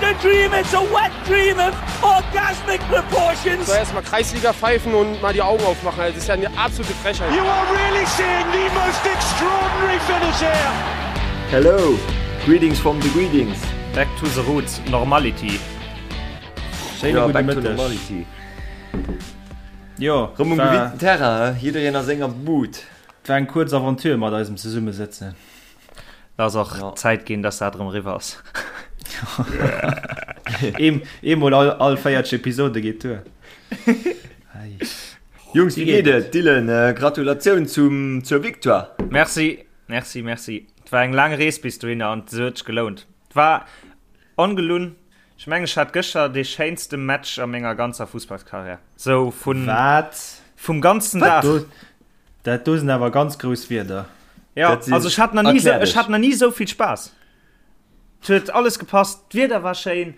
a dream, it's a wet dream of orgasmic proportions. So erstmal Kreisliga pfeifen und mal die Augen aufmachen. Das ist ja eine absolute Frechheit. You are really seeing the most extraordinary finish here. Hello, greetings from the greetings. Back to the roots, normality. Schéine Ja, gudde back to Mëtteg. normality. Jo, Rëm um war, gewinnten Terrain, he? Jiddereen a senger Bud. war eng kuerz Aventure mat eisem Zesummesëtzen. Et ass och Ja. Zäit ginn, dass dat erëm eriwwer ass. Eem, eemol all, all 40 Episode geet duer. Ei. Jungs, wéi geet et? Dylan, äh, Gratulatioun zum, zur Victoire. Merci, merci, merci. Et war eng laang Rees bis dohinner an se huet sech gelount. Et war ongelunn. Ech mengen, ech hat gëschter dee schéinste Match a menger ganzer Fussballskarriär. Sou vun, Wat? vum ganzen Dag. Do, dat do sinn awer ganz grouss Wierder. Ja, Dat sinn- also ech hat nach nie, Erklär ech dech. hat nach nie sou vill Spaass. Et huet alles gepasst, d'Wieder war schéin,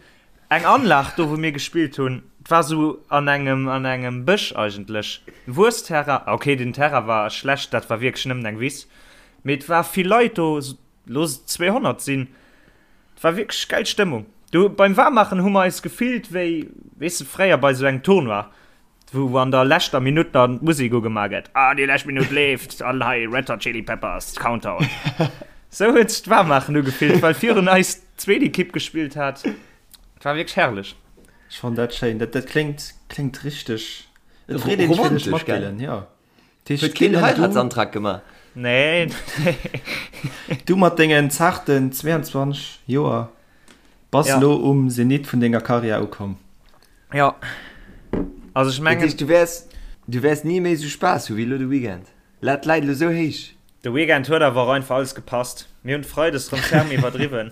eng Anlag do wou mir gespillt hunn, et war sou an engem an engem Bësch eigentlech, Wuessterrain, okay den Terrain war schlecht, dat war wierklech nëmmen eng Wiss, mee et war vill Leit do, looss et 200 sinn, et war wierklech gäil Stëmmung. Do beim Waarmaachen hu mer eis gefillt wéi, weess de, fréier bei sou engem Tournoi, Wou an der leschter Minutt dann d'Musek ugemaach gëtt, ah déi lescht Minutt leeft an hei Red Hot Chili Peppers, Countdown. Sou huet sech d'Waarmmaachen ugefillt, well virun eis d'zweet Ekipp gespillt hat. Et war wierklech herrlech. Ech fannen dat schéin. Dat, dat kléngt, kléngt richteg. Et freet een sech fir dech Romantesch, mat, gell? Dylan, jo. Dat heescht, Huet keen Dylan, du, Heiratsantrag gemaach? Nee, nee. du mat dengen zarten 22 Joer bass Ja. elo um Zenit vun denger Karriär ukomm. Jo. Also ech Dat mengen. heescht, du wäers, du wäers ni méi esou Spaass hu wéi elo de Weekend. Lat läit elo esou héich. De Weekend huet awer och einfach alles gepasst. Mir hunn Freides rëm ferm iwwerdriwwen.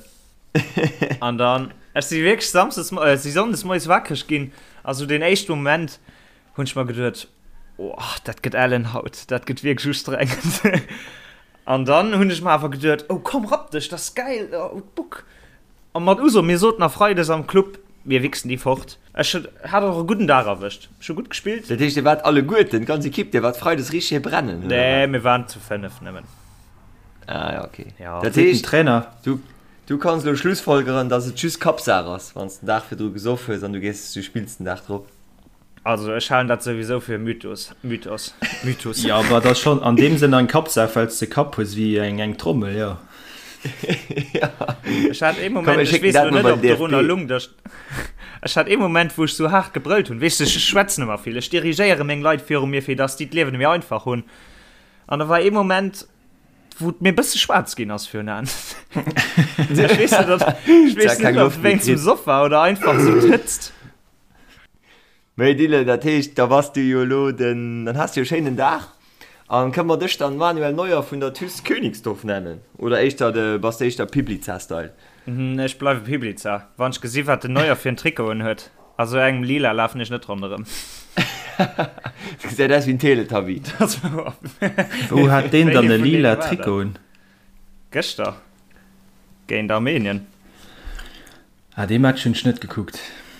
An dann, ech si wierklech Samsdes, äh, si Sonndes moies wakreg ginn a sou deen éischte Moment hunn ech mer geduet, oh, dat gëtt ellen haut, dat gëtt wierklech ustrengend. An dann hunn ech mer awer geduet, oh komm, rapp dech, dat ass gäil, oh, d'Buck. A mat Uso, mir soten a Freides am Club, mir wichsen déi fort. Ech hat och e gudden Dag erwëscht. Ech hu gutt gespillt. Dat heescht, dir waart alleguerten, d'ganz Ekipp, dir waart Freides richteg hir brennen, oder Nee, wat? mir waren zu 5 nëmmen. Ah ja, okay. Ja. Dat Seet den heescht, Trainer. du, du kanns elo schlussfolgeren, dass et just Kappsaach ass, wann s den Dag virdru gesoff hues an du gees, du spills den Dag drop. Also ech halen dat souwisou fir e Mythos. Mythos. Mythos. Jo, awer et ass schonn an deem Sënn eng Kappsaach, well s de Kapp hues wéi eng eng Trommel, jo. Ech hat ee Komm, Moment, mir ech schécken weess dat elo mol net, bei ob den dorunner DFB. lung, dass ech hat ee Moment, wou ech sou haart gebrëllt hunn. Weess de, ech schwätzen ëmmer vill, ech dirigéiere meng Leit viru mir, fir dass déi d'Liewen méi einfach hunn. An da war ee Moment, wou et mir e bësse schwaarz ginn ass virun Aen. Ech weess net, ob, ech weess Keng net, ob Loft et méi wéinst dem kritt. Soff war oder einfach sou d'Hëtzt. Mee Dylan, dat heescht, da bass du jo elo den, dann has du jo e schéinen Dag. An kënne mer dech dann Manuel Neuer vun der TuS Königsdorf nennen? Oder éischter de, bass de éischter Piblica-Style? Ech bleiwe Piblica, wann ech gesi wat den Neuer fir en Trikot un huet. A sou engem lila lafen ech net ronderëm. Dat gesäit aus wéi en Teletubby. Wou hat deen dann Wéi e ee vun lila deene war dat? Trikot un? Gëschter géint Armenien. Ah, dee Match hunn ech net gekuckt.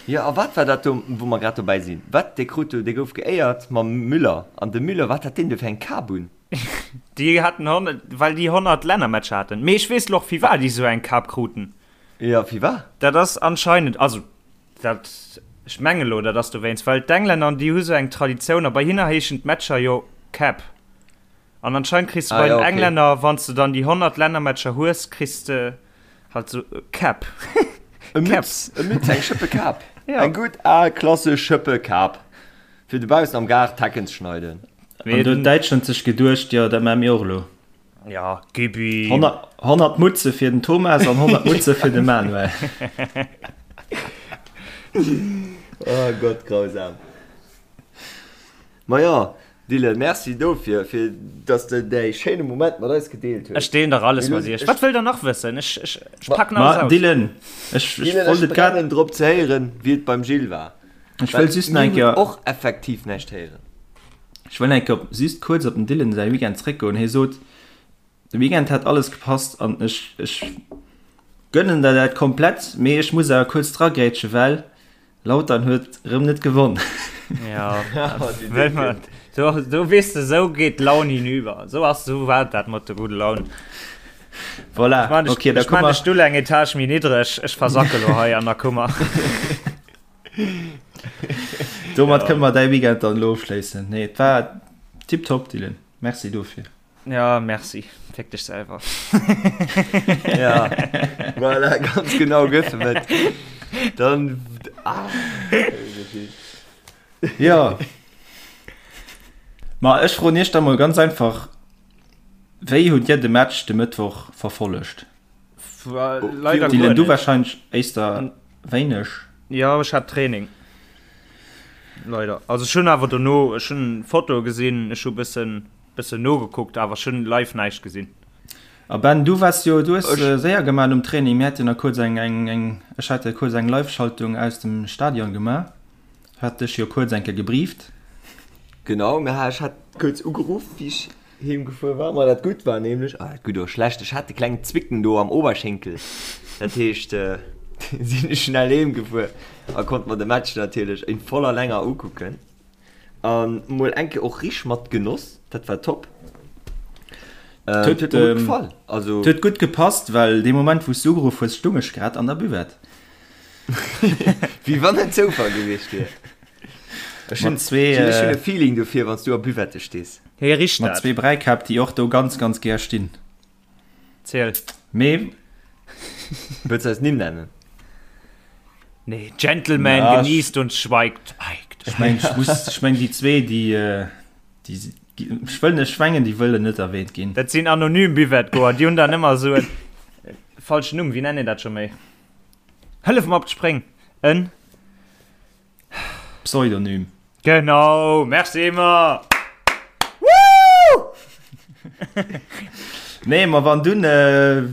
Jo, a wat war dat do, wou mer grad dobäi sinn? Wat, dee krut do, dee gouf geéiert mam Müller, an de Müller, wat hat deen do fir eng Kap un? Déi haten 100, well déi 100 Lännermatcher haten. Mee ech weess lo och firwat déi sou eng Kap kruten. Jo, firwat? Dat ass anscheinend, also dat, ech menge lo, dat ass dowéinst, well d'Englänner, déi hu sou eng Traditioun a bei hinner heeschen d'Matcher jo Cap. An anscheinend kriss de Ah bei jo, den okay. Englänner, wann s de dann déi 100 Lännermatcher hues, kriss de halt sou e Cap. E Cap. Mütz, e Mütz, eng Schëppe Kap. Ja. Eng gutt al klassesch Schëppe Kap, fir dobaussen am Gaart d'Hecken ze schneiden. Mee An do huet den, Däitschland sech geduecht, jo, dat maache mir och elo. ja, gib ihm. 100, 100 Mutze fir den Thomas an 100 Mutze fir de Manuel. Oh Gott, grausam. Maja, Dylan, merci dofir, fir dass de däi schéine Moment mat eis gedeelt hues. Ech deelen dach alles Mir mat loossen iech. ech. Wat wëllt der nach wëssen? Ech, ech, ech packen alles Ma aus. Dylan, ech, ech Dylan, wollt ech et grad, brennen drop ze héieren, wéi et beim Gilles war. ech Well wëll just nach mir eng hunn Kéier, och effektiv näischt héieren. ech wëll nach eng Kéier op, just kuerz op den Dylan säi Weekend zréckgoen. Hie sot, de Weekend hätt alles gepasst an ech, ech gönnen der dat komplett, mee ech muss awer kuerz dragrätsche well Lautern huet rëm net gewonn. Ja, well man, do, do weess de, sou geet d'Laun hinüber. Sou ass, sou war dat mat der gudde Laun. Voilà, Ech man okay, da ech komme man de mer. Stull eng Etage méi niddreg, ech versacke lo hei an der Kummer. Domat kënne mer däi Weekend dann elo ofschléissen. Nee, et war tiptop, Dylan. Merci dofir. Ja, merci. Féck dech selwer. Ja, voilà, ganz genau gëff em et. Dann, ah, Ja. Ma ech froen iech da mol ganz einfach, Wéi hutt dir de Match de Mëttwoch verfollegt? Leider Dylan, guer du net. wahrscheinlech éister wéineg. Ja, ech hat Training. Leider. Also ech hunn awer dono, ech hunn Fotoe gesinn, ech hu bëssen, bëssen nogekuckt, awer ech hunn live näischt gesinn. A Ben, du waars jo, du hues séier gemaach nom Training. Mir hate jo nach kuerz eng, eng, eng, ech hat jo kuerz eng Live-Schaltung aus dem Stadion gemaach. Hat dech jo kuerz eng Kéier gebrieft. Genau, mä ech hat kuerz ugeruff, wéi ech heem gefuer war. Ma dat Gutt war nämlech, ah, gutt oder schlecht, ech hat de klengen Zwicken do am Oberschenkel. Dat heescht, sinn ech schnell heem gefuer a konnt mer de Match natierlech in voller Länger ukucken. An mol eng Kéier och rich mat Genoss, dat war top. Et huet mir gutt gefall. Also. Et huet gutt gepasst, well dee Moment, wou s du ugeruff hues, stung ech grad an der Buvette. Wéi wann et Zoufall gewiescht wier. Ech hunn e Feeling dofir, wann s du a Buvette stees. Hie richt Mat dat. zwee Bräikäpp, déi och do ganz, ganz gär stinn. Ziel. Mee. Wëlls du eis Nimm nennen? Nee, Gentleman Ja, ech- genießt und schweigt. Schweigt. Ech meng, ech muss, ech meng, déi zwee, déi, déi, ech wëll net, ech mengen, déi wëllen net erwähnt ginn. Dat sinn anonym Buvette-Goer, déi hunn dann ëmmer esou en falschen Numm. Wéi nennt een dat scho méi? Hëllef mer op d'Spréng! En. Pseudonym. Genau! Merci Emma! Woo! Nee, ma wann dunn,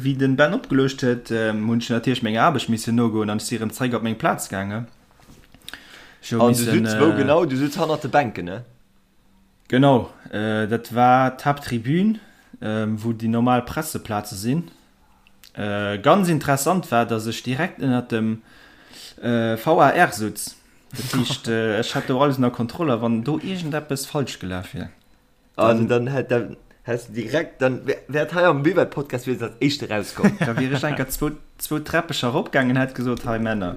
wéi den Ben opgeluecht huet, hunn ech natierlech menger Aarbecht missen nogoen an ech si rëm zeréck op meng Plaz gaangen. Ech hu An du missen, sutz wou genau? Du sutz hannert de Bänken, ne? Genau, dat war d'Haapttribün, wou déi normal Presseplaze sinn. Ganz interessant war, dass ech direkt ënnert dem VAR sutz. Dat heescht, ech hat do alles ënner Kontroll a wann do iergendeppes falsch gelaf wier, Also dann hätt dann häss du direkt, dann wär wär et hei am Buvette-Podcast wier et als éischt erauskomm. Da wier ech enker zwou, zwou Träppecher eropgaangen, hätt gesot, hei Männer,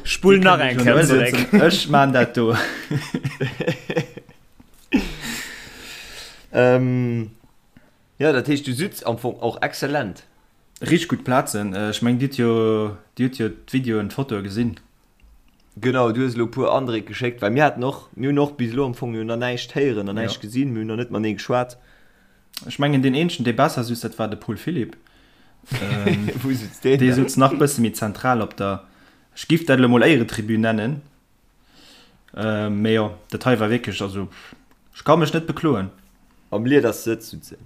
Spull dir nach kënnt eng mech elo Kéier zeréck. sëtzen, ech maan dat do. Ähm, Jo, dat heescht du sutz am Fong och excellent. Richteg gutt Plazen. Ech mengen dir hutt jo, dir hutt jo d'Videoen, d'Fotoe gesinn. Genau, du hues elo e puer Andréck geschéckt, well mir haten och, mir hunn och bis elo am Fong jo nach näischt héieren an näischt gesinn, mir hunn nach net matenee geschwat. Ech mengen deen eenzegen dee besser sutz, dat war de Paul Philipp. Wou sutz deen Dee dann? sutz nach bësse méi zentral op der, ech giff dat elo mol Éieretribün nennen. Mee jo, dat hei war wierklech, also ech ka mech net bekloen. Am Liedersëtz sutz en.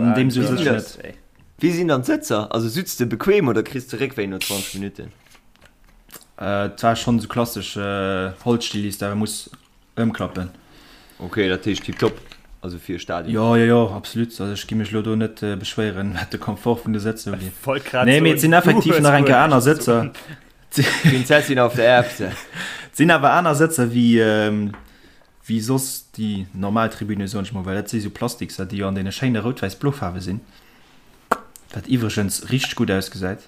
An deem sutz ech net. Wéi sinn dann d'Sëtzer? Also sutz de bequem oder kriss de Réckwéi no 20 Minutten? Et war schonn esou klassesch Holzstill, déi s de awer muss ëmklappen. Ok, dat heescht tiptop, also fir e Stadion. Jo, jo, jo, absolut. Also ech gi mech elo do net beschwéieren, wat de Komfort vun de Sëtzer ugeet. Wollt grad Nee, mee soen, et sinn du effektiv hues nach eng guer Kéier aner näischt ze Sëtzer. soen. Prinzessin auf der Erbse. Et sinn awer aner Sëtzer wéi wéi soss déi normal Tribüne, soen ech mol, well dat si sou Plastikser, déi jo an deene schéine rout-wäiss-blo Faarwe sinn, wat iwwregens richteg gutt ausgesäit.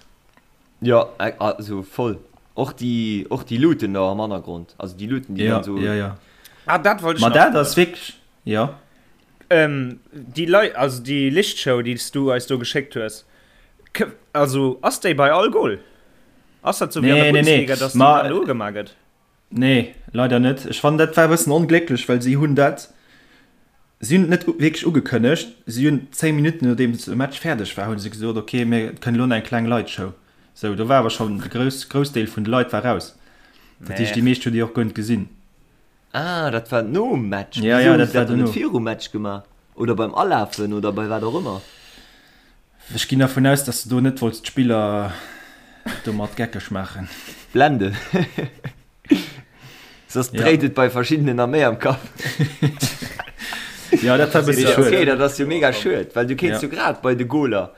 Jo, also voll. Och déi, och déi Luuten do am Hannergrond, also déi Luuten, déi Ja, dann sou. ja, ja. Ah, dat wollt ech Ma nach dat froen. ass wierklech, jo. Ähm, déi Lei, also déi Lichtshow, déi s du eis do geschéckt hues, k, also ass déi bei all Goal? Ass dat sou wéi an der Nee, nee, nee. Bundesliga, dass déi Ma dann ugemaach gëtt? Nee, leider net. Ech fannen dat war e bëssen onglécklech, well si hunn dat, si hunn et net wierklech ugekënnegt. Si hunn 10 Minutten nodeems de Match fäerdeg war, hu se gesot, ok, mir kënnen elo nach eng kleng Lightshow. Sou, do war awer schonn de grouss, Groussdeel vun de Leit war raus. Dat heescht, déi meescht hunn déi och guer net gesinn. Ah, dat war nom Match. Ja, Wisou ja, hu dat se war dat dann net dono. virum Match gemaach? Oder beim Alafen oder bei wat och ëmmer? Ech ginn dervun aus, dass de do net wollts d'Spiller domat geckeg maachen. Blenden. Soss dréit et bei verschiddenen nach méi am Kapp. Jo, dat war e bësse schued. Okay, dat ass jo mega schued, well du kéints jo grad bei de Goler,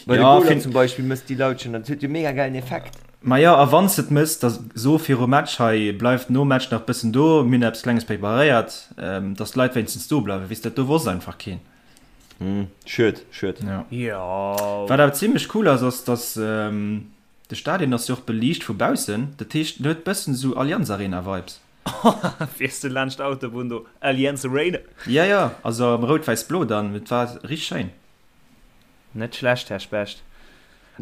bei de Goler zum Beispill mëss déi Lautschen, dat huet jo mega gäilen Effekt. Majo, a wann s de et mëss, da so virum Match, hei bleift nom Match nach bëssen do, mir hunn eppes Klenges preparéiert, dass d'Leit wéinstens do bleiwen. Weess de, dat do wosst einfach keen. Schued, schued. Ja. Jo. Wat awer zimlech cool ass, ass dass de Stadion ass jo och beliicht vu baussen, dat heescht en huet bëssen esou Allianz Arena Vibes. Fiers du laanscht d'Autobunn do, Allianz Arena? Ja, ja, also am rout-wäiss-blo dann, et war richteg schéin. Net schlecht, Här Specht.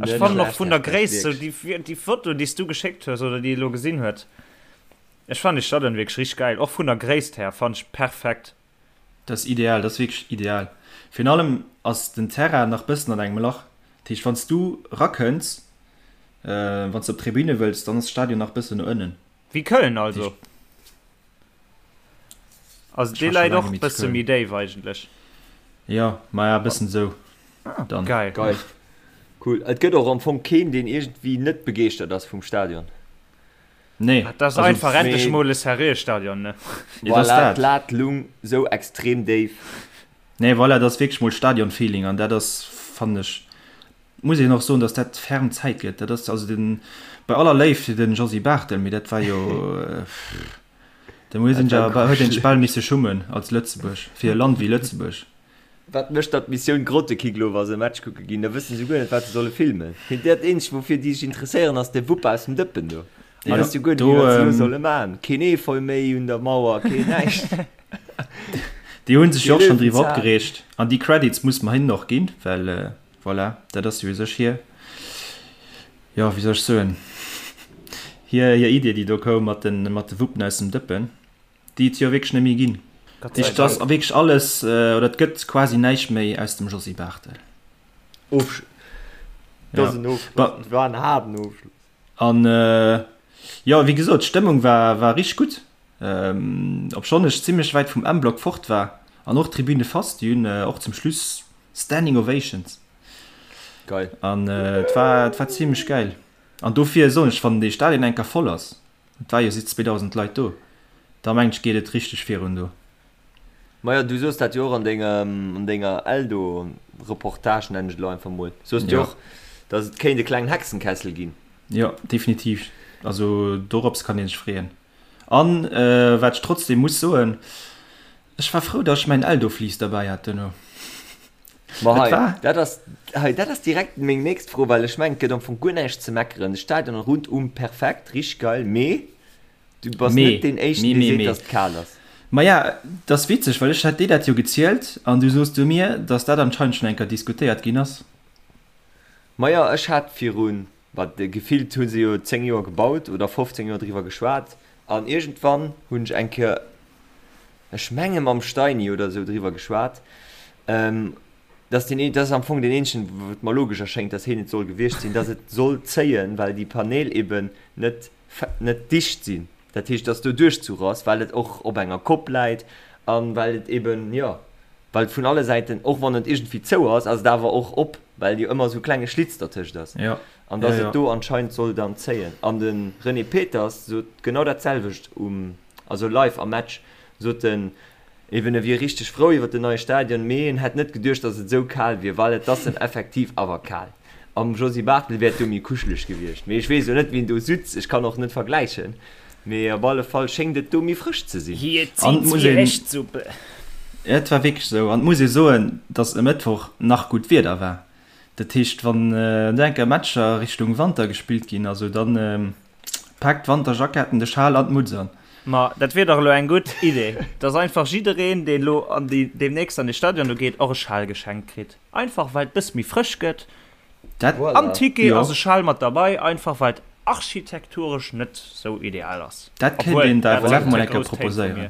Ech fannen och vun der Gréisst, sou déi Foto déi s du geschéckt hues oder déi ee lo gesinn huet, ech fannen dee Stadion wierklech richteg gäil, och vun der Gréisst här fannen ech perfekt. Dat ass ideal, dat ass wierklech ideal. Virun allem ass den Terrain nach bëssen an engem Lach, dat heescht wann s du rakënns, wann s de op d'Tribüne wëlls, dann ass de Stadion nach bëssen no ënnen. Wéi Köln also. Also dee läit och bësse méi déif eigentlech. Jo, maja bëssen esou dann. Geil. Geil. Cool. Et gëtt och am Fong keen, deen iergendwéi net begeeschtert ass vum Stadion. Nee. Dat ass einfach endlech mol e seriöe Stadion, ne? Voilà, d'Lat lung sou extrem déif. Nee, voilà, dat ass wierklech mol Stadion-Feeling an dat ass, fannen ech, Muss een och soen, dass dat ferm Zäit gëtt. Dat ass also den, bei aller Léift fir den Josy Barthel, mee dat war jo, da muss een ja, huet een sech bal misse schummen als Lëtzebuerg, fir e Land wéi Lëtzebuerg. Wat mécht da d'Missioun Grottekick elo, wa se e Match kucke ginn? Da wësse se guer net, wat se solle filmen. Dat eenzegt, woufir déi sech interesséieren, ass de Wupp aus dem Dëppen do. Da wësse se guer net méi, wat se elo solle maachen. Keen Efeu méi un der Mauer, keen näischt. Déi hu sech jo och schonn driwwer opgereegt an déi Credits muss mer hinnen och ginn, well Voilà, dat ass jo u sech hir, jo, wéi soll ech soen, hir, hir Idee, déi do koum mat de, mat de Wuppen aus dem Dëppen, déi et jo wierklech net méi ginn. Gott sei Et ass Dank. wierklech alles, oder et gëtt quasi näischt méi aus dem Josy Barthel. Ofschluss. Dat ass en Ofschluss. Dat war en haarden Ofschluss. An, jo, wéi gesot, d'Stëmmung war, war richteg gutt, obschonn ech zimmlech wäit vum M-Block fort war. An och d'Tribüne fast, déi hunn och zum Schluss Standing Ovations. Geil. An et war, et war zimmlech gäil. An dofir soen ech, wann dee Stadion eng Kéier voll ass, et war jo si 2.000 Leit do, da mengen ech geet et richteg virun do. Majo, du soos dat jo och an dengem, an denger Eldo-Reportage, nennen ech et elo einfach mol, soos du jo och, datt et kéint e klengen Hexenkessel ginn. Jo, definitiv. Also dorops kann ee sech freeën. An wat ech trotzdem muss soen, ech war frou, dass ech mäin Eldo-Fleece derbäi hat duerno. Ma Et hei, war. dat ass, hei, dat ass direkt meng nächst Fro, well ech mengen, et gëtt am Fong guer näischt ze meckeren. De Stadion rundum perfekt, richteg geil, mee du bass Mee, net deen Éischten, mee, dee mee, seet, mee. dass et kal ass. Maja, et ass witzeg, well ech hat dir dat jo gezielt an du soos du mir, dass dat anscheinend schonn eng Kéier diskutéiert ginn ass. Maja, ech hat virun Wat gefillt hu se jo 10 Joer gebaut oder 15 Joer driwwer geschwat an iergendwann hunn ech eng Kéier, ech menge mam Steini oder esou driwwer geschwat, dass deen, dat ass am Fong deen eenzegen, wou et mer logesch erschéngt, dass heen et soll gewiescht sinn, dass et soll zéien, well déi Paneel eben net, net dicht sinn. Dat heescht, dass do Duerchzuch ass, well et och op enger Kopp läit a well et eben, jo, well et vun alle Säiten, och wann et iergendwéi zou ass, ass et awer och op, well jo ëmmer esou klenge Schlitz dertëscht ass. Ja. An dass Ja, ja. et do anscheinend soll dann zéien. An de René Peters sot genau dat selwecht um, also live am Match, sot en eben, e wier richteg frou iwwer den neie Stadion, mee en hätt net geduecht, dass et esou kal wier, well et ass em effektiv awer kal. Am Josy Barthel wär et do méi kuscheleg gewiescht. Mee ech weess elo net, wien do sutz, ech kann och net vergläichen, mee op alle Fall schéngt et do méi frësch ze sinn. Hie An zitt muss wéi een, Hechtsuppe. et war wierklech esou, an et muss ee soen, dass e Mëttwoch nach gutt Wieder war. Dat heescht, wann do eng Kéier Matcher Richtung Wanter gespillt ginn, also dann paakt d'Wanterjacketten, de Schal an d'Mutz an. Ma dat wier dach elo eng gutt Idee, dass einfach jiddereen, deen elo an déi deemnächst an dee Stadion do geet, och e Schal geschenkt kritt. Einfach well et bëss méi frësch gëtt. Dat, Am Ticket jo. ass e Schal mat derbei, einfach well et architekturesch net sou ideal ass. Dat kéint Obwuel, een der dat FLF sinn mol ze eng Kéier grouss Téin vu mir. proposéieren.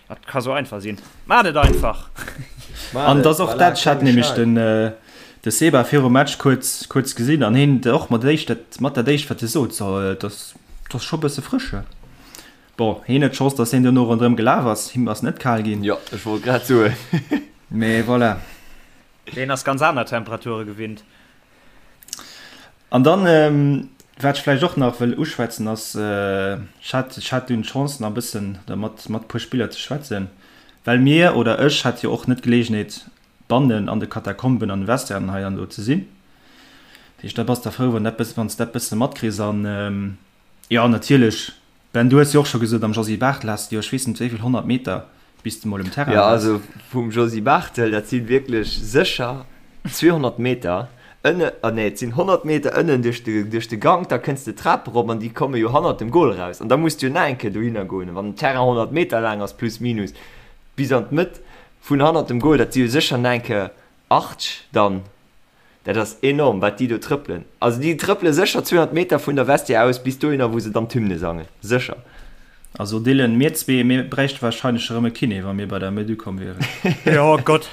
Dat ka sou einfach sinn. Maacht et einfach! Maacht An et, et ass och voilà, dat, ech hat klenge nämlech Schal. den, de Seba virum Match kuerz, kuerz gesinn an hien och mat éischt dat, mat dat éischt wat hie sot, so, et ass, et ass scho bësse frësch he. Bon, hien huet d'Chance, datt hien duerno ronderëm gelaf ass, him ass net kal ginn. Jo, ech wollt grad soen. Mee voilà. Deen ass ganz aner Temperature gewinnt. An dann, wat ech vläicht och nach wëll uschwätzen, ass, ech hat, ech hat dunn d'Chance nach e bëssen da mat, mat e puer Spiller ze schwätzen, well mir, oder ech hat jo och net d'Geleegenheet bannen an de Katakomben an de Vestiairen hei an do ze sinn. Dat heescht, da bass de frou, wann dat bëssen, wann s de dat bësse matkriss. An jo, natierlech, Ben, du hues jo och scho gesot, am Josy Barthel has de jo ech weess net wéi vill 100 Meter. Bis de mol um Terrain Jo, also vum Josy Barthel, dat si wierklech sécher 200 Meter ënne, ah nee, et sinn 100 Meter ënnen duerch de, duerch de Gank, da kënns de d'Trap erop an déi komme jo hannert dem Gol eraus an da muss de jo nach eng Kéier dohinner goen. Wann den Terrain 100 Meter laang ass, plus minus, bis an d'Mëtt vun hannert dem Gol, dat si jo sécher nach eng Kéier 80 dann. Dat ass enorm, wat déi do trëppelen. Also déi trëppele sécher 200 Meter vun der Vestiaire aus bis dohinner, wou se dann d'Hymne sangen. Sécher. Also Dylan, mir zwee, mir bräichte wahrscheinlech erëm e Kiné, wa mir bei der Mëtt ukomm wieren. Jo Gott,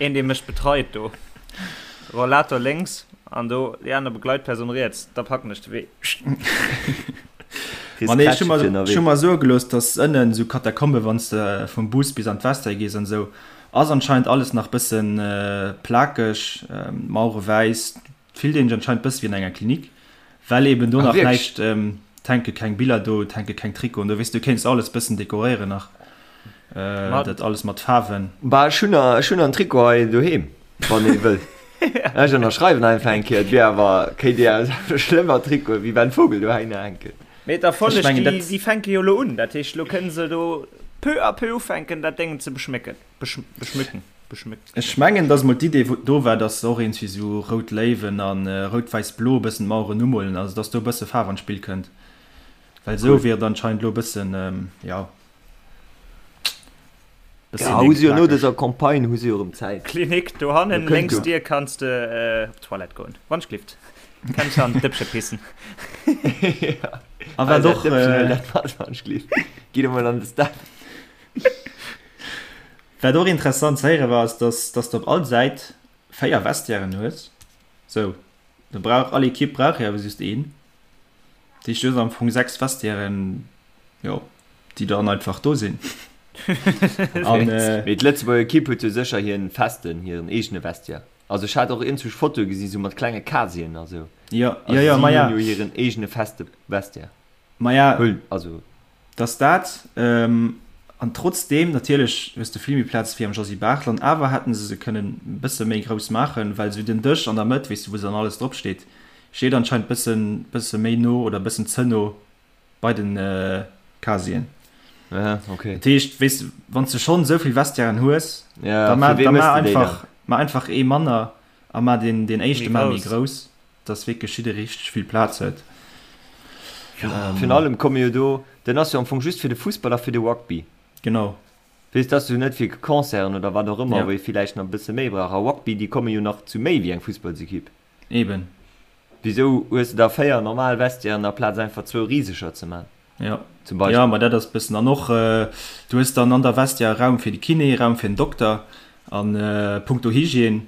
een dee mech betreit do. Rollator lénks an do déi aner Begleitperson riets, da packen ech de Wee. Ma nee, ech hu mer, ech hu mer soe gelooss, dass ënnen esou Katakombe, wann s de vum Bus bis an d'Vestiaire gees an esou, Ass anscheinend alles nach bëssen plakeg, Mauere wäiss, fillt een sech anscheinend bësse wéi an enger Klinik, well eben do nach näischt, et hänke keng Biller do, et hänke keng Trikoten do, weess du kéints alles bëssen dekoréieren nach, dat alles mat Faarwen. Bah ech hunn ech hunn en Trikot hei doheem, wann ee wëll. Ech ënnerschreiwen einfach eng Kéier, et wier awer, kéint Dir awer schlëmmer Trikote wéi Ben Vogel dohinner hänken. Mee d'Erfolleg, déi, déi fänke jo elo un. Dat heescht, elo kënne se do peu à peu ufänken, dat Déngen ze beschmécken, beschmücken, beschmücken. Ech mengen, dass mol d'Idee do war, dass se och iergendwéi esou rout Léiwen a rout-wäiss-blo e bëssen d'Maueren umolen, also dass do e bësse Faarf an d'Spill kënnt. Well esou wier et anscheinend elo e bëssen, jo. Ja, hu se jo no dëser Campagne hu se jo erëm Zäit. Klinik dohannen lénks Dier kanns de op d'Toilette goen. Wann ech glift. Kanns an d'Dëppche pissen. A wat och wann ech glift. Gitt emol an de Staff. Wat och interessant ze héiere war, ass dass dass de op all Säit 4 Vestiairen hues. Sou, do brauch all Ekipp brauch jo awer just een. Dat heescht du hues am Fong 6 Vestiairen, jo. déi dann einfach do sinn. An, äh, Mee d'Lëtzebuerger Ekipp huet jo sécher hiren festen, hiren eegene Vestiaire. Also ech hat och iergendwou Fotoe gesi sou mat klenge Casieren a sou. Ja, ja, ja, ma ja. Si hunn jo hiren eegene feste Vestiaire. Ma ja. Hull, also. Dass dat, ähm, an trotzdeem, natierlech hues de vill méi Plaz wéi am Josy Barthel, an awer hätten se se kënnen e bësse méi grouss maachen, well sou den Dësch an der Mëtt, weess de, wou se dann alles drop steet, steet anscheinend bëssen, bësse méi no oder bëssen ze no Bei den Casien. Ja, okay. Dat heescht, weess de, wann s de schonn esou vill Vestiairen hues, ja, da ma, da ma einfach, ma einfach ee manner a ma deen, deen éischte ma méi grouss, dass wierklech jidderee richteg vill Plaz huet. Ja, virun allem komme jo do, den ass jo am Fong just fir de Fussball a fir de Rugby. Genau. Weess, dass du net fir Concerten oder wat och ëmmer, wou ee villäicht nach e bësse méi brauch. A Rugby, déi komme jo nach zu méi wéi eng Fussballsekipp. Eben. Wisou hues de da 4 normal Vestiairen aplaz einfach zwou riseger ze man? Jo. Zum Beispill. Jo, ma dat ass bëssen. An och, du hues dann an der Vestiaire Raum fir de Kiné, Raum fir den Dokter an punkto Hygiène,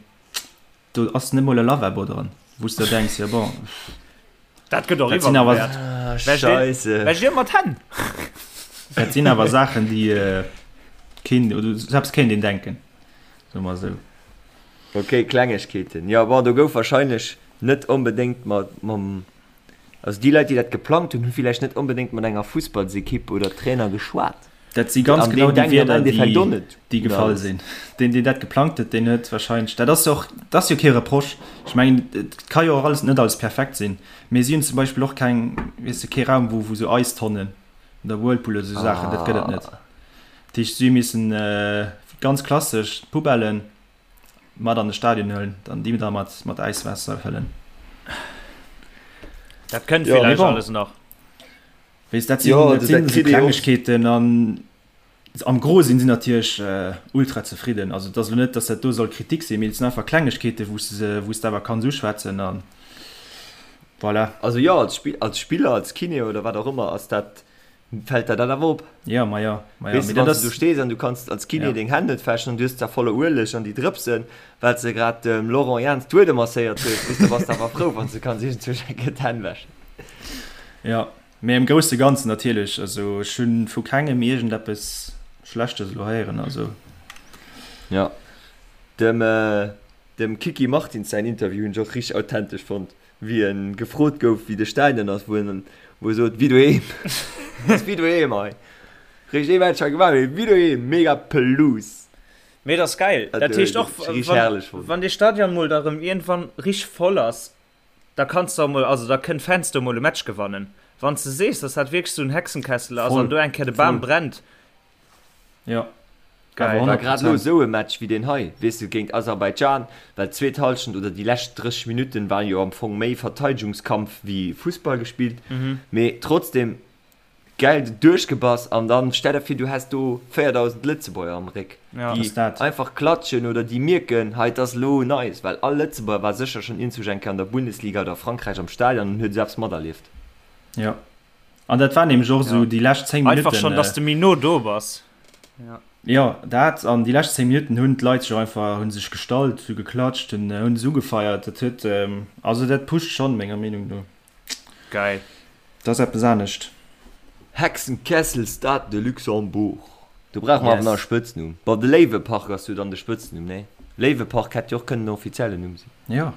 do ass net mol e Lavabo dran, wou s de der denks, jo bon, Dat gëtt och dat sinn awer, iwwerbewäert. Ah, Scheisse. Wäsch dir mat Hänn? dat sinn awer Saachen, déi keen, oder selbst kéint een denken, soe mer esou. Ok, Klengegkeeten. Jo, bon, do gouf wahrscheinlech net onbedéngt mat, mam, also déi Leit, déi dat geplangt hunn, hu villäicht net onbedéngt mat enger Fussballsekipp oder Trainer geschwat. Dat si ganz An genau deen déi denkt am Wierder, Endeffekt och déi, net déi un gefall alles. sinn. Deen, deen dat geplangt huet, deen huet wahrscheinlech, dat ass jo och, dat ass jo kee Reproche. Ech mengen, et ka jo och alles, net alles perfekt sinn, mee si hunn zum Beispill och keng, weess de, kee Raum, wou, wou sou Eistonnen oder Whirlpool oder sou Saachen, dat gëtt et net. Ah. Dat heescht, si hu missen ganz klassesch d'Poubellen mat an de Stadion huelen, dann déi da mat, mat Äiswaasser fëllen. Dat kënnt Jo, mee villäicht bon. alles nach. Weess, dat sinn, Jo, dat also sinn dat esou kritt ee och. Klengegkeeten an am Gros sinn si natierlech ultra zefridden. Also et ass elo net, datt dat do soll Kritik sinn, mee et sinn einfach Klengegkeeten, wou s de se, wou s de awer kanns uschwätzen a voilà. Also jo, als Spill, als Spiller, als Kiné oder wat och ëmmer ass dat Fällt der dat awer op? Ja, ma ja, ma ja. Weess de, wann s du do stees an du kanns als Kiné ja. deng Hänn net wäschen an du hues zwar voller Ueleg an déi Drëpsen, well s de grad dem Laurent Jans d'Uede masséiert hues, weess de, bass de awer frou, wann s de kanns iergendzwousch eng Kéier d'Hänn wäschen. Ja, mee am grousse Ganzen natierlech, also ech hu vu kengem iergendeppes Schlechtes elo héieren, also. Ja, dem, dem Kiki Martins säin Interview hunn ech och richteg authentesch fonnt. Wéi en gefrot gouf wéi de Stadion ass, wou en wou e sot wéi doheem. Ass wéi doheem hei. Réischt ee Match hei gemaach, mee wéi doheem, mega Pelouse. Mee et ass gäil. Dat Dat heescht och rich wann herrlech fonnt. wann dee Stadion mol da rëm iergendwann rich voll ass, da kanns de och mol, also da kënnt Fans do mol e Match gewannen. Wann s de sees, dass dat wierklech esou en Hexenkessel ass Voll, an do eng Kéier de Bam voll. brennt. Jo. Geil. War grad elo esou e Match wéi deen hei, weess de, géint Aserbaidschan, well d'zweet Hallschent oder déi lescht 30 Minutten war jo am Fong méi Verteidegungskampf wéi Fussball gespillt, mee trotzdem geil duerchgebass an dann stell der vir du häss do 4000 Lëtzebuerger am Réck, déi einfach klatschen oder déi mierken, hei et ass elo nice, well all Lëtzebuerger war sécher schonn iergendwou eng Kéier an der Bundesliga oder a Frankräich am Stadion an huet esou eppes materlieft. Jo, an dat war nämlech och esou déi lescht 10 Minutten. Einfach schonn, dass de méi no do bass. Jo, dat an déi lescht 10 Minutten hunn d'Leit sech och einfach, hu sech gestallt, hu geklatscht, hunn hunn se ugefeiert. Dat huet, also dat pusht schonn, menger Meenung no. Geil. Dat ass eppes anescht. Hexenkessel Stade de Luxembourg. Do brauche mer awer nach e Spëtznumm. Bon, de Léiwepark ass jo dann de Spëtznumm, nee? Léiwepark hätt jo och kënnen den offiziellen Numm sinn. Jo.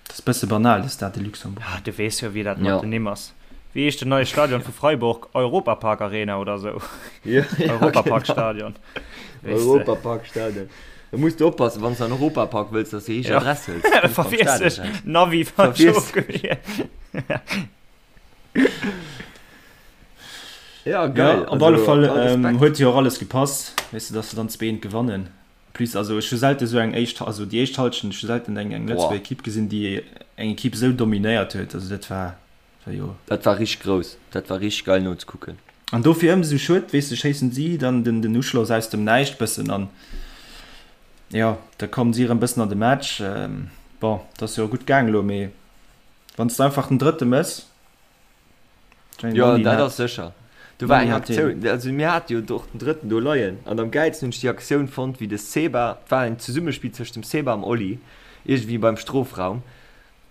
Dat ass bësse banal, de Stade de Luxembourg. Ah, du weess jo, wéi dat mat den Nimm ass. Wéi heescht den neie Stadion vu Freiburg? Europapark Arena oder sou? Ja, ja, Europapark-Stadion. Genau. Europapark-Stadion. Da muss du oppassen, wann du an Europapark wëlls, dass du déi richteg Adress hëls. Ja. Verwiess dech. Navi falsch ofgewielt. Ja, geil. Ja, op alle Fall huet jo och alles gepasst, weess de, dass se dann 2-1 gewannen. Plus, also ech hu selten esou eng éischt, also déi éischt Halschent, ech hu selten eng eng Lëtzebuerger Equipe gesinn, déi eng Equipe esou dominéiert huet. Also dat war, war jo. Dat war richteg grouss, dat war richteg geil nozekucken. An dofir ëmsou schued, weess de, schéissen si dann den den Uschloss aus dem Näischt bëssen an jo, da kommen si erëm bëssen an de Match. Bon, et ass jo gutt gaang elo, mee wann s de einfach den drëtte mëss, Jo, dat ass sécher. Do war eng Aktioun, also mir hate jo och den drëtten do leien an am gäilsten hunn ech déi Aktioun fonnt, wéi de Seba, et war en Zesummespill tëscht dem Seba am Oli, iergendwéi beim Strofraum.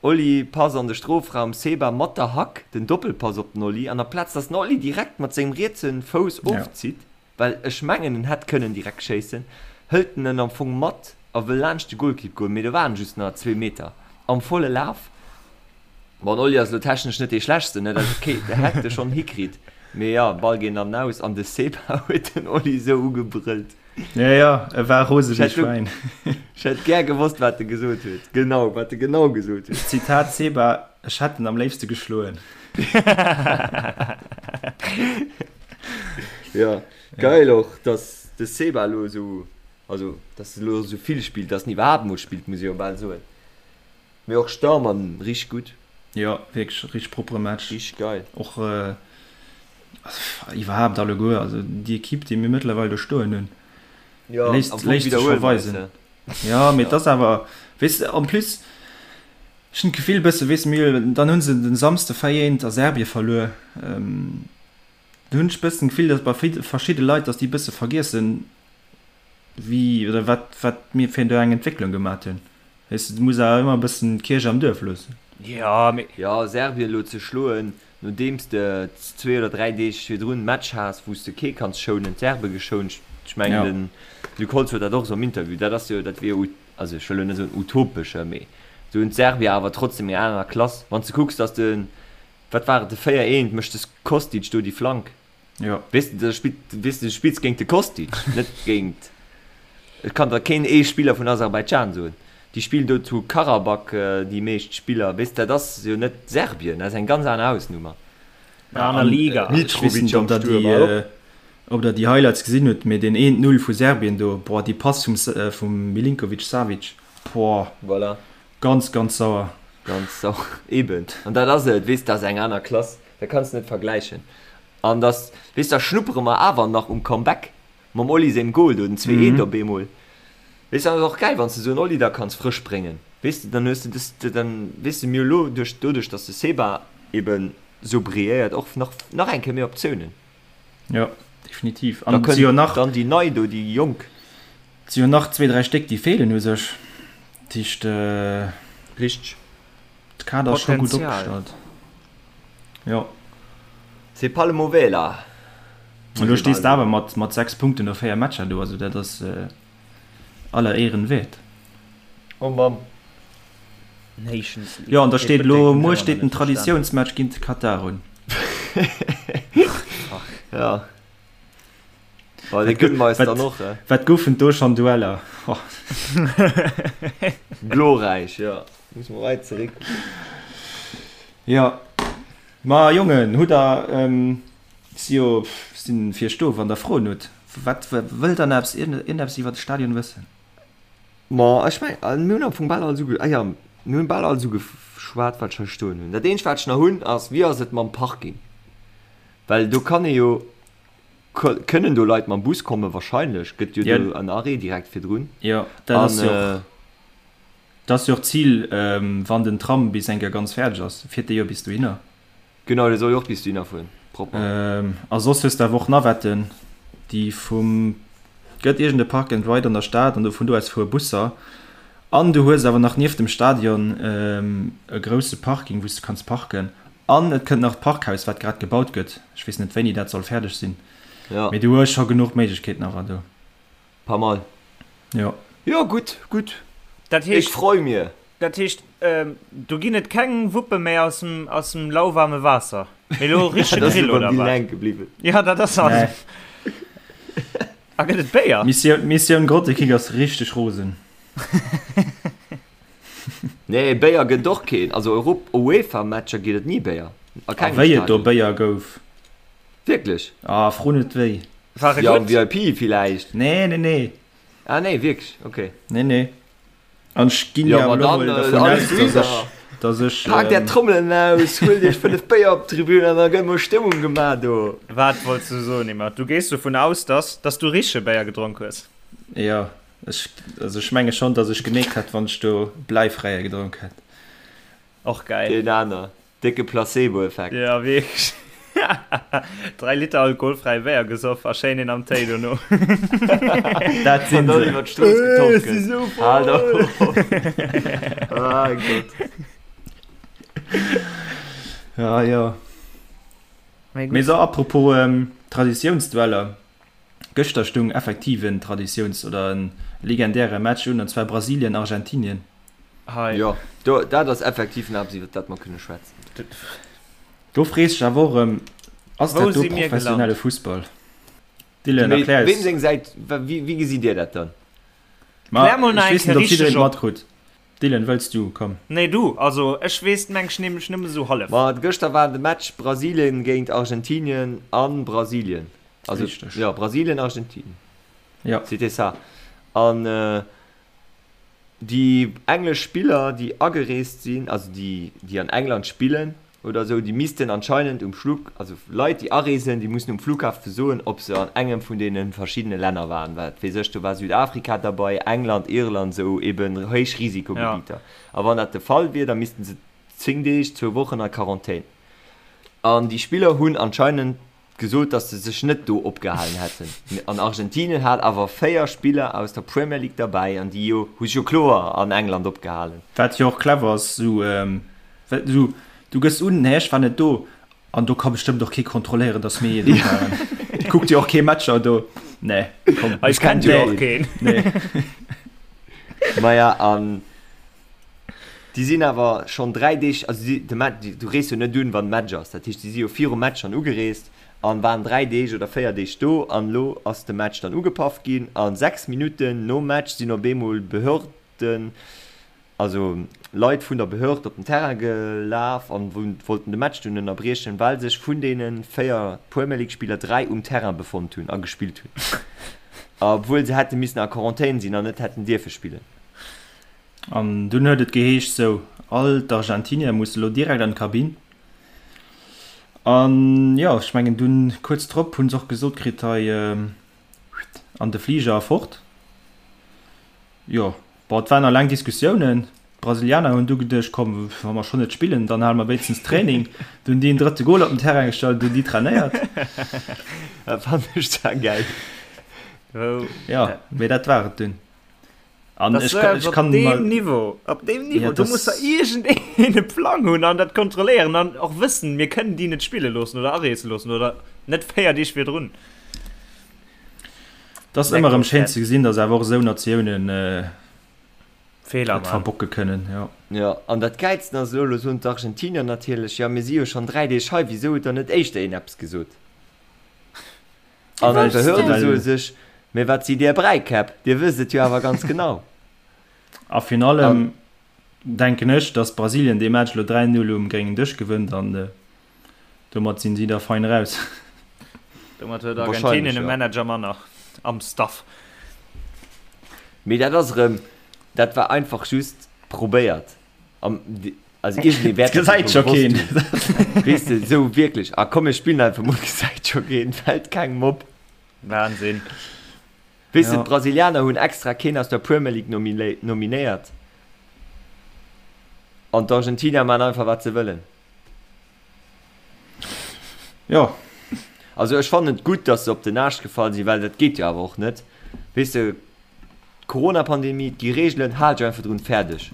Oli Pass an de Strofraum, Seba mat der Hack den Doppelpass op den Oli an amplaz datt den Oli direkt mat sengem rietse Fouss ofzitt, well ech mengen en hätt kënnen direkt schéissen, hëlt en en am Fong mat a wëll laanscht de Golkipp goen, mee do waren just nach zwee Meter am volle Laf. Bon, den Oli ass elo technesch net dee schlechtsten, ne, dat ass ok, de hätt e schonn hikritt, mee jo, Ball geet an den Aus an de Seba huet den Oli esou ugebrëllt. Ja, ja, e war rose wéi Schwäin. Ech hätt gär gewosst, wat e gesot huet, genau, wat e genau gesot huet. Zitat Seba, Ech hätt en am léifste geschloen. Ja, geil och, dass de Seba elo esou, also dass e elo esou vill spillt, dass en iwwerhaapt emol spillt, muss ee jo bal soen. Mee och Starmann richteg gutt. Jo, wierklech richteg proppere Match. Richteg geil. Och iwwerhaapt alleguer, also déi Equipe, déi mir mëttlerweil do stoen hunn, léisst léisst sech scho weisen. Jo, mee et ass awer, weess de, en plus, ech hunn d'Gefill bësse, weess de, mir, dann hu se den Samsde 4 eent a Serbie verluer. Do hunn ech bëssen d'Gefill, datt bei verschidde Leit, datt déi bësse vergiessen, wéi oder wat wat mir fir do eng Entwécklung gemat hunn. Weess de, du muss awer ëmmer e bëssen d'Kierch am Duerf loossen. Jo, mee. Jo, Serbien elo ze schloen, nodeems de zwee oder dräi Deeg virdrun Match has, wou s de kee kanns schounen, d'Serbe geschount, ech mengen den Luc Holtz huet dat och esou am Interview, dat ass jo, dat wier jo, also ech wëll elo net soen utopesche, mee esou hunn d'Serbier awer trotzdem eng aner Klass. Wann s de kucks, datt de Wat war et, de 4 eent mécht de Kostic do déi Flank. Jo. Weess de, da spillt, weess de, du spills géint de Kostic, net géint, ech kann der keen ee Spiller vun Aserbaidschan soen. Déi spillen do zu Karabakh, déi meescht Spiller, weess de, dat ass jo net Serbien, dat ass eng ganz aner Hausnummer. Eng aner Liga. Ech weess net, ob der déi, ob der déi Highlights gesinn hutt, mee deen eent Null vu Serbien do, boah, déi Pass vum, vum Milinkovic-Savic, boah. Voilà. Ganz, ganz sauer. Ganz sauer, eben. An dat ass et, weess, dat ass eng aner Klass, dat kanns de net vergläichen. An dass, weess, da schnuppere mer awer nach um Comeback mam Oli sengem Goal do, den 2, 1 op eemol. Weess, dat ass och gäil, wann s de esou en Oli da kanns frësch bréngen, weess de, dann hues de des, dann, weess de, mir hu lo duerch, doduerch, dass de Seba eben esou brilléiert, och nach, nach eng Kéier méi Optiounen. Jo, definitiv. An da kënnt dann déi nei do, déi Jonk. Et si jo nach zwee, dräi Stéck, déi feelen u sech. Dat heescht, Richteg. de Kader ass scho gutt opgestallt. Jo. C'est pas le mauvais là. Elo stees de awer mat, mat 6 Punkten no 4 Matcher do, also dat ass aller Éieren wäert. Oh Mamm. Nations League. Jo, an da steet elo, muer steet den Traditiounsmatch géint de Katar un. Ja. Bon, dee gënne mer eis dann och, he? Wat goufen do schonn Dueller? Oh. Glorräich, jo. Muss mer weit zeréck. Jo. Ma Jongen, hutt der, si jo, sinn fir iech do, wann der Froen hutt. Wat wëllt der nach eppes, iergendeppes iwwer de Stadion wëssen? Ma ech meng, mir hunn am Fong bal alles uge, ah jo, mir hunn bal alles ugeschwat, wat ech hei stoen hunn. Dat eenzegt, wat ech nach hunn, ass, Wéi ass et mam Parking? Well do kann ee jo, kënnen do Leit mam Bus kommen? Wahrscheinlech gëtt jo do en Arrêt direkt virdrun. Jo, dat ass jo och, dat ass jo och d'Zil, wann den Tram bis eng Kéier ganz fäerdeg ass, fiert dee jo bis dohinner. Genau, dee soll jo och bis dohinner fueren, propper. A soss hues de awer och Navetten, déi vum, gëtt iergend e Park and Ride an der Stad an do vun do aus fuere Busser. An du hues awer nach nieft dem Stadion e grousse Parking, wou s de kanns parken. An et kënnt nach d'Parkhaus, wat grad gebaut gëtt. Ech weess net, wéini dat soll fäerdeg sinn, mee du hues scho genuch Méiglechkeeten awer do. Pas mal. Jo. Jo, gutt, gutt. Dat heescht. Ech freu mir. Dat heescht, do ginn et keng Wuppe méi aus dem, aus dem lauwarme Waasser. Mee elo richtege Grill, oder wat? Hänke bliwwen. Ja, dat ass alles. Nee. A gëtt et Béier? Mission, Mission Grottekick ass richteg rosen. Nee, Béier gëtt och keen. Also Europ UEFA-Matcher ginn et ni Béier. A kengem A wéi et do Stadion. Béier gouf. Wierklech? Ah, fro net wéi. War e Ja, am gutt? VIP villäicht. Nee, nee, nee. Ah nee, wierklech, okay. Nee, nee. An ech ginn Ja, jo ma awer elo dann, mol äh, dervun alles aus, dass super. ech, dass ech, Paakt är ähm, Trommelen aus, huelt iech 5 Béier op d'Tribün an da gëtt mol Stëmmung gemaach do. Wat wollts du soen, Emma? Du gees dovun aus, dass, dass du richtege Béier gedronk hues? Jo, ech, also ech menge schonn, dass ech gemeekt hätt, wann ech do Bläifräie gedronk hätt. Och geil. Deen aner. Décke Placebo-Effekt. Ja, wierklech. 3 Liter alkoholfräie Béier gesoff a schéin een am Téi dono. Dat sinn An dann se. iwwer d'Strooss Ech getorkelt. si sou Haalt voll! op. Ah Gott. Ja, jo. Mee Mee gutt. so, apropos Traditiounsdueller, Gëschter stung effektiv en Traditiouns oder en legendäre Match un, an zwar Brasilien-Argentinien. Hei. Jo, do, dat ass effektiv en eppes, iwwer dat mer kënne schwätzen. Do frees dech awer och erëm, ass Wou dat do si mir professionelle gelant? Fussball? Dylan, Mee erklär weem eis. seng Säit, wéi, wéi gesitt Dir dat dann? Ma Klär mol nach ech eng weess net, Kéier ob jiddereen richteg et op. matkrutt. Dylan, wëlls du? Komm. Nee, du. Also, ech weess meng ech nämlech nëmme sou hallef. Ma gëschter war de Match Brasilien géint Argentinien a Brasilien. Also, Richteg. jo, Brasilien, Argentinien. Jo. C'était ça. An Déi englesch Spiller, déi agereest sinn, also déi, déi an England spillen oder esou, déi missten anscheinend um Flug, also Leit, déi areesen, déi mussen um Flughafe soen, ob se an engem vun deene verschiddene Länner waren. Wat weess ech, do war Südafrika derbei, England, Irland, esou eben héich Risikogebieter. A wann dat de Fall wier, da missten se 10 Deeg, zwou Wochen a Quarantän. An déi Spiller hunn anscheinend gesot, datt se sech net do opgehalen hätten. An Argentinien hat awer 4 Spiller aus der Premier League derbäi an déi jo hu sech jo kloer an England opgehalen. Wat jo och clever ass, sou well sou du gëss un, nee ech war net do an do ka bestëmmt och kee kontrolléieren, datt mir do waren. Kuckt jo och kee Matcher do. Nee, komm. Eis kennt jo och keen. Nee. Maja an Déi sinn awer schonn 3 Deeg, also si, de Match, du rees jo net un, wann Match ass. Dat heescht, déi si jo virum Match schonn ugereest an waren 3 Deeg oder 4 Deeg do an elo ass de Match dann ugepaff ginn a 6 Minutten nom Match sinn op eemol Behörden, also Leit vun der Behörd op den Terrain gelaf an wollten de Match dunn ënnerbriechen, well sech vun deene 4 Premier League Spiller 3 um Terrain befonnt hunn a gespillt hunn, obwuel se hätte missen a Quarantän sinn an net hätten dierfe spillen. An dunn huet et geheescht, sou, all d'Argentinier musse lo direkt an d'Kabinn. An jo, ech mengen dunn kuerz drop hunn se och gesot kritt, hei an de Fliger a fort. Jo, bon, et waren nach laang Diskussiounen. D'Brasilianer hunn du geduecht, komm, wa mer schonn net spillen, dann hale mer wéinstens Training. Dunn hunn déi en drëtte Gol op den Terrain gestallt, hunn déi trainéiert. Dat fannen ech zwar gäil. Jo, mee dat war et dunn. An Das ech war kann, ech op kann deem mal, Niveau, op deem Niveau, Ja, do das- muss der iergendeen e Plang hunn an dat kontrolléieren an och wëssen, mir kënnen déi net spille loossen oder areese loossen oder net 4 Deeg virdrun. das ass ëmmer erëm schéin ze gesinn, dass awer och esou Natiounen äh, Feeler et man. verbocke kënnen. Ja. Jo, an dat Gäilsten ass elo, elo soen d'Argentinier natierlech, jo mir si jo schonn 3 Deeg hei, wisou huet dann net éischter een eppes gesot? An Well- d'Behörde soe sech, Mee wat sidd Dir Bräikäpp, Dir wësst et jo awer ganz genau. A virun allem denken ech, dass Brasilien dee Match elo 3, 0 um gréngen Dësch gewënnt an domat sinn si da fein raus. Domat huet Argentinien e Manager manner. Am Staff. Mee dat ass erëm, dat war einfach just probéiert. Am, also iergendee wäert dat Gesäit scho gewosst keen. hunn. Weess de, esou wierklech, ah komm mir spillen einfach mol, gesäit scho keen, fält kengem op. Wahnsinn. Weess de, Ja. d'Brasilianer hunn extra keen aus der Premier League nominéiert an d'Argentinier maachen einfach wat se wëllen. Jo. Also ech fannen et gutt, dass se op den Aascht gefall sinn, well dat geet jo awer och net. Weess de, d'Corona-Pandemie, et gi Reegelen, haal dech einfach drun, fäerdeg.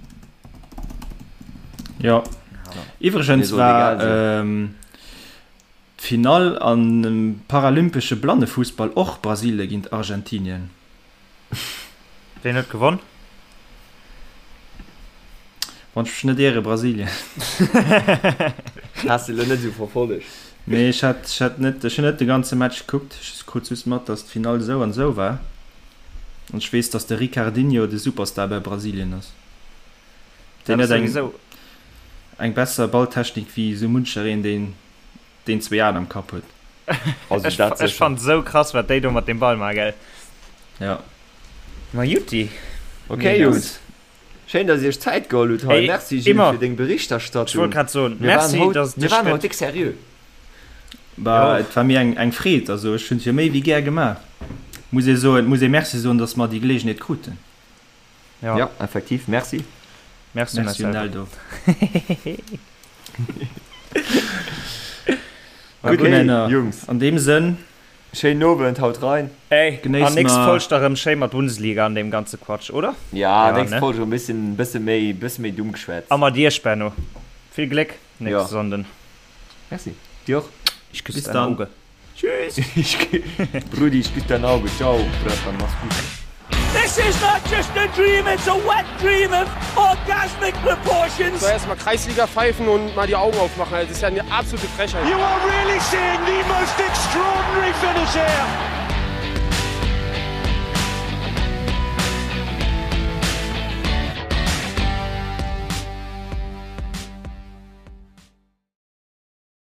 Jo. Mir Iwwregens soll war egal sinn. d'Finall an dem paralympesche Blannefussball och Brasilie géint Argentinien. Ween huet gewonn? Wann ech mech net iere, Brasilien. Has de lo net esou verfollegt? Nee, ech hat, ech hat net, ech hunn net de ganze Match gekuckt. Ech krut just mat, datt d'Finall esou an esou war. An ech weess, datt de Ricardinho de Superstar bei Brasilien ass. Deen huet eng, eng besser Balltechnik wéi esou munchereen, deen, deen zwéi Aen am Kapp huet. Also Ech, dat ech sécher. fannt esou krass, wat déi do mat deem Ball maachen, gell? Ja. Ma jutti. Okay, Jungs. Schéin, dass Dir Iech Zäit geholl hutt hei. Ey, Merci Gilles immer. fir deng Ech wollt Berichterstattung. grad soen, Mir waren merci, haut, dass et mir dech waren haut gëtt. déck seriö. Bah, Jo. et war mir eng, eng Freed. Also ech hunn et jo méi wéi gär gemaach. Muss ee soen, muss ee Merci soen, dass mer déi Geleegenheet kruten. Ja. Ja, effektiv. Merci. Merci, Merci Marcel. un Eldo. Gutt, Gutt, Männer. Jungs. An deem Sënn. Schéinen Owend, haut rein. Ey, Genéiss an nächst mer. Folg da rëm schéi mat Bundesliga an deem ganze Quatsch, oder? Ja, Ja, nächst ne? Folg rëm bëssen, bësse méi, bësse méi dumm geschwätzt. A mat iech, Benno. Vill Gléck Ja. nächste Sonnden. Merci. Dir och. Ich küsse Bis dein dann. Auge. Tschüss. Brudi, ich küsse dein Auge. Ciao, Bratan, mach's gut. This is not just a dream, it's a wet dream of orgasmic proportions. So erstmal Kreisliga pfeifen und mal die Augen aufmachen. Also, das ist ja eine absolute Frechheit. You are really seeing the most extraordinary finish here.